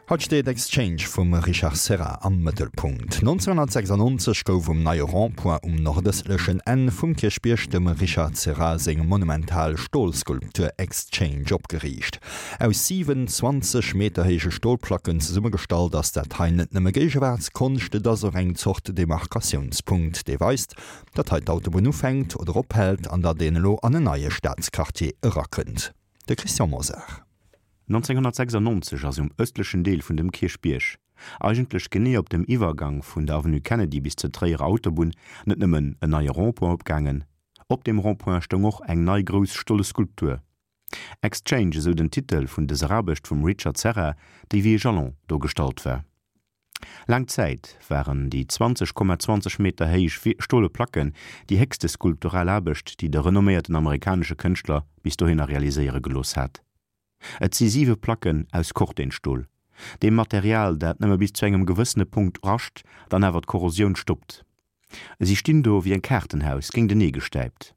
Haut steet Exchange vum Richard Serra am Mëttelpunkt. 1996 gouf um neie Rond-point um nordëstlechen Enn vum Kierchbierg dem Richard Serra seng monumental Stolskulptur Exchange opgeriicht. Aus 27 Meter héije Stolplacken zesummegestallt ass dat hei net nëmme Géigewaartskonscht, et ass och eng Zort Demarkatiounspunkt, dee weist, datt hei d'Autobunn ufänkt oder ophält an datt een elo an en neie Staatsquartier erakënnt. De Christian Mosar. 1996 ass um ëstlechen Deel vun dem Kierchbierg, eigentlech genee op dem Iwwergang vun der Avenue Kennedy bis zur Tréierer Autobunn, net nëmmen en neie Rond-point opgaangen. Op deem Rond-point stoung och eng nei grouss stolle Skulptur. Exchange, esou den Titel vun dëser Aarbecht vum Richard Serra, déi wéi e Jalon do gestallt war. Laang Zäit waren déi 20,20 Meter héich stole Placken déi héchste skulptural Aarbecht, déi de renomméierten amerikanesche Kënschtler bis dohinner realiséiere gelooss hat. Et si siwe Placken aus Cortenstol, deem Material, dat nëmme bis zu engem gewëssene Punkt rascht, dann awer d'Korrosioun stoppt. Si stinn do wéi eng Kaartenhaus géintenee gestäipt.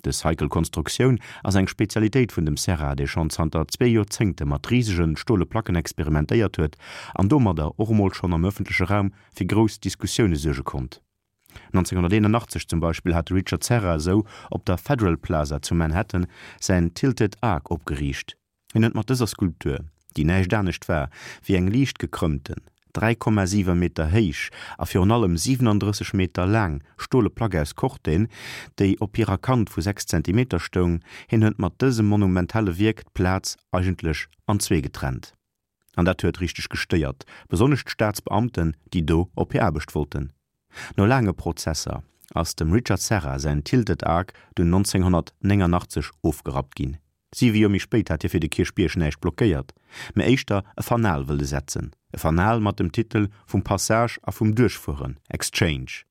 Dës heikel Konstruktioun ass eng Spezialitéit vun dem Serra, dee schonn zanter zwee Joerzéngte mat risege stole Placken experimentéiert huet an domadder och emol schonn am ëffentleche Raum fir grouss Diskussioune suerge konnt. 1981 zum Beispill hat de Richard Serra esou op der Federal Plaza zu Manhattan säin Tilted Arc opgeriicht. Hien huet mat dëser Skulptur, déi näischt anescht war wéi eng liicht gekrëmmten, 3,7 Meter héich a virun allem 37 Meter laang stole Plack aus Corten, déi op hirer Kant vu 6 Zentimeter stoung, hien huet mat dësem monumentale Wierk d'Plaz eigentlech an zwee getrennt. An dat huet richteg gestéiert, besonnesch d'Staatsbeamten, déi do op hir Aarbecht wollten. No laange Prozesser ass dem Richard Serra säin Tilted Arc dunn 1989 ofgerappt ginn. Siwe Joer méi spéit hat hie fir de Kierchbierg näischt blockéiert, mä éischter e Fanal wëlle setzen, e Fanal mat dem Titel vum Passage a vum Duerchfueren, Exchange.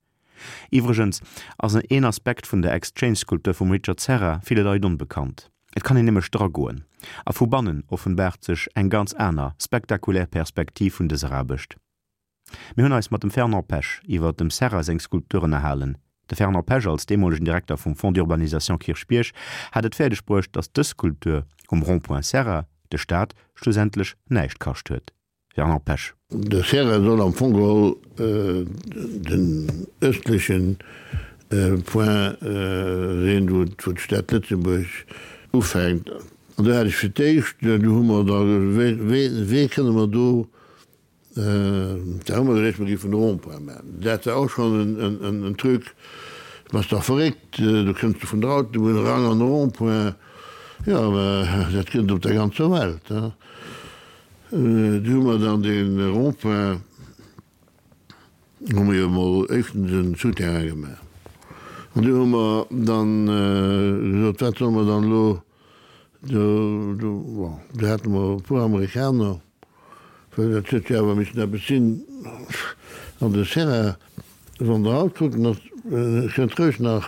Iwwregens ass een Aspekt vun der Exchange-Skulptur vum Richard Serra ville Leit onbekannt. Et kann een nämlech dragoen, a vu bannen offenbaart sech eng ganz aner, spektakulär Perspektiv vun dëser Aarbecht. Mir hunn eis mat dem Fernand Pesch iwwer dem Serra seng Skulptur ënnerhalen. De Fernand Pesch als deemolegen Direkter vum Fonds d'urbanisation Kierchbierg hat et fäerdeg bruecht, datt dës Skulptur um Rond-point Serra de Staat schlussendlech näischt kascht huet. Fernand Pesch. De Serra soll am Fong geholl den ëstleche Point sinn, wou d'Stad Lëtzebuerg ufänkt. An do hat ech fir d'éischt, do hu mer da wéi kënne mer do, da hu mer geduecht, mer géifen e Rond-point maachen. Dat war och schonn en Truc, Bass dach verréckt, do kënns de vun der Autobunn eran an e Rond-point. Jo, mä dat gëtt et op der ganzer Welt. Du hu mer dann dee Rond-point, hu mer jo emol éischtens en Souterrain gemaach. An du hu mer dann gesot, wat solle mer dann elo do, do, bon, do hate mer e puer Amerikaner, well dat huet jo awer missen eppes sinn. An de Serra, wann Der haut kuckt, en ass, kënnt roueg nach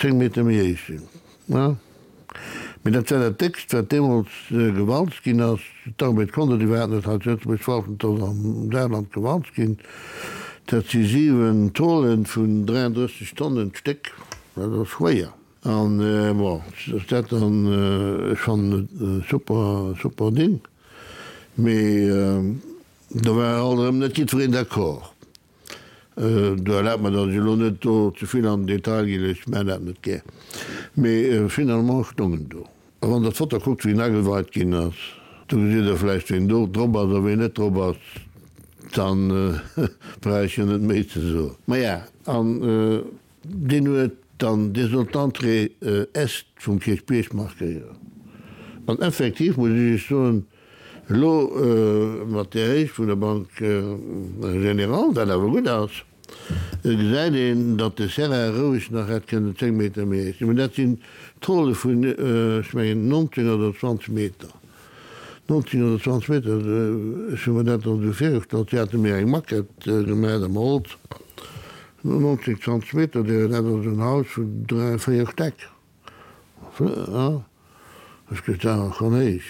10 Meter méi héich sinn. Mee dat war dat Déckst, wat deemools gewalzt ginn ass. D'Arbed konnt et iwwerhaapt net hei zu Lëtzebuerg walzen, et ass am Saarland gewalzt ginn. Dat si 7 Tôlen vun 33 Tonnen d'Stéck, dat ass schwéier. An bon, ass dat dann, ech fannen et e super, super Ding, mee do war alt erëm net jiddwereen d'accord. Do erlaabt mer, datt ech elo net do ze vill an den Detail ginn, ech maachen dat net gär. Mee finalement stoung en do. A wann Der d'Foto kuckt, wéi en ageweit ginn ass, do gesitt Der vläicht, ween do drop ass a ween net drop ass. Dann brauch ech jo net méi ze soen. Maja, an deen huet dann, dee sollt d'Entrée Est vum Kierchbierg markéieren. An effektiv muss ech Iech soen, Elo mat där Héicht vun der Banque Générale, wat awer gutt ass, gesäit een, datt de Serra roueg nach hätt kënnen 10 Meter méi héich sinn. Mä dat sinn Tôle vun, ech mengen, 19 oder 20 Meter. 19 oder 20 Meter, ech hu mer dat dann esou virgestallt, si hate mir eng Maquette gemaach am Holz, 19, 20 Meter, dat ass en Haus vun 3, 4 Stäck. Ech gëtt awer schonn héich.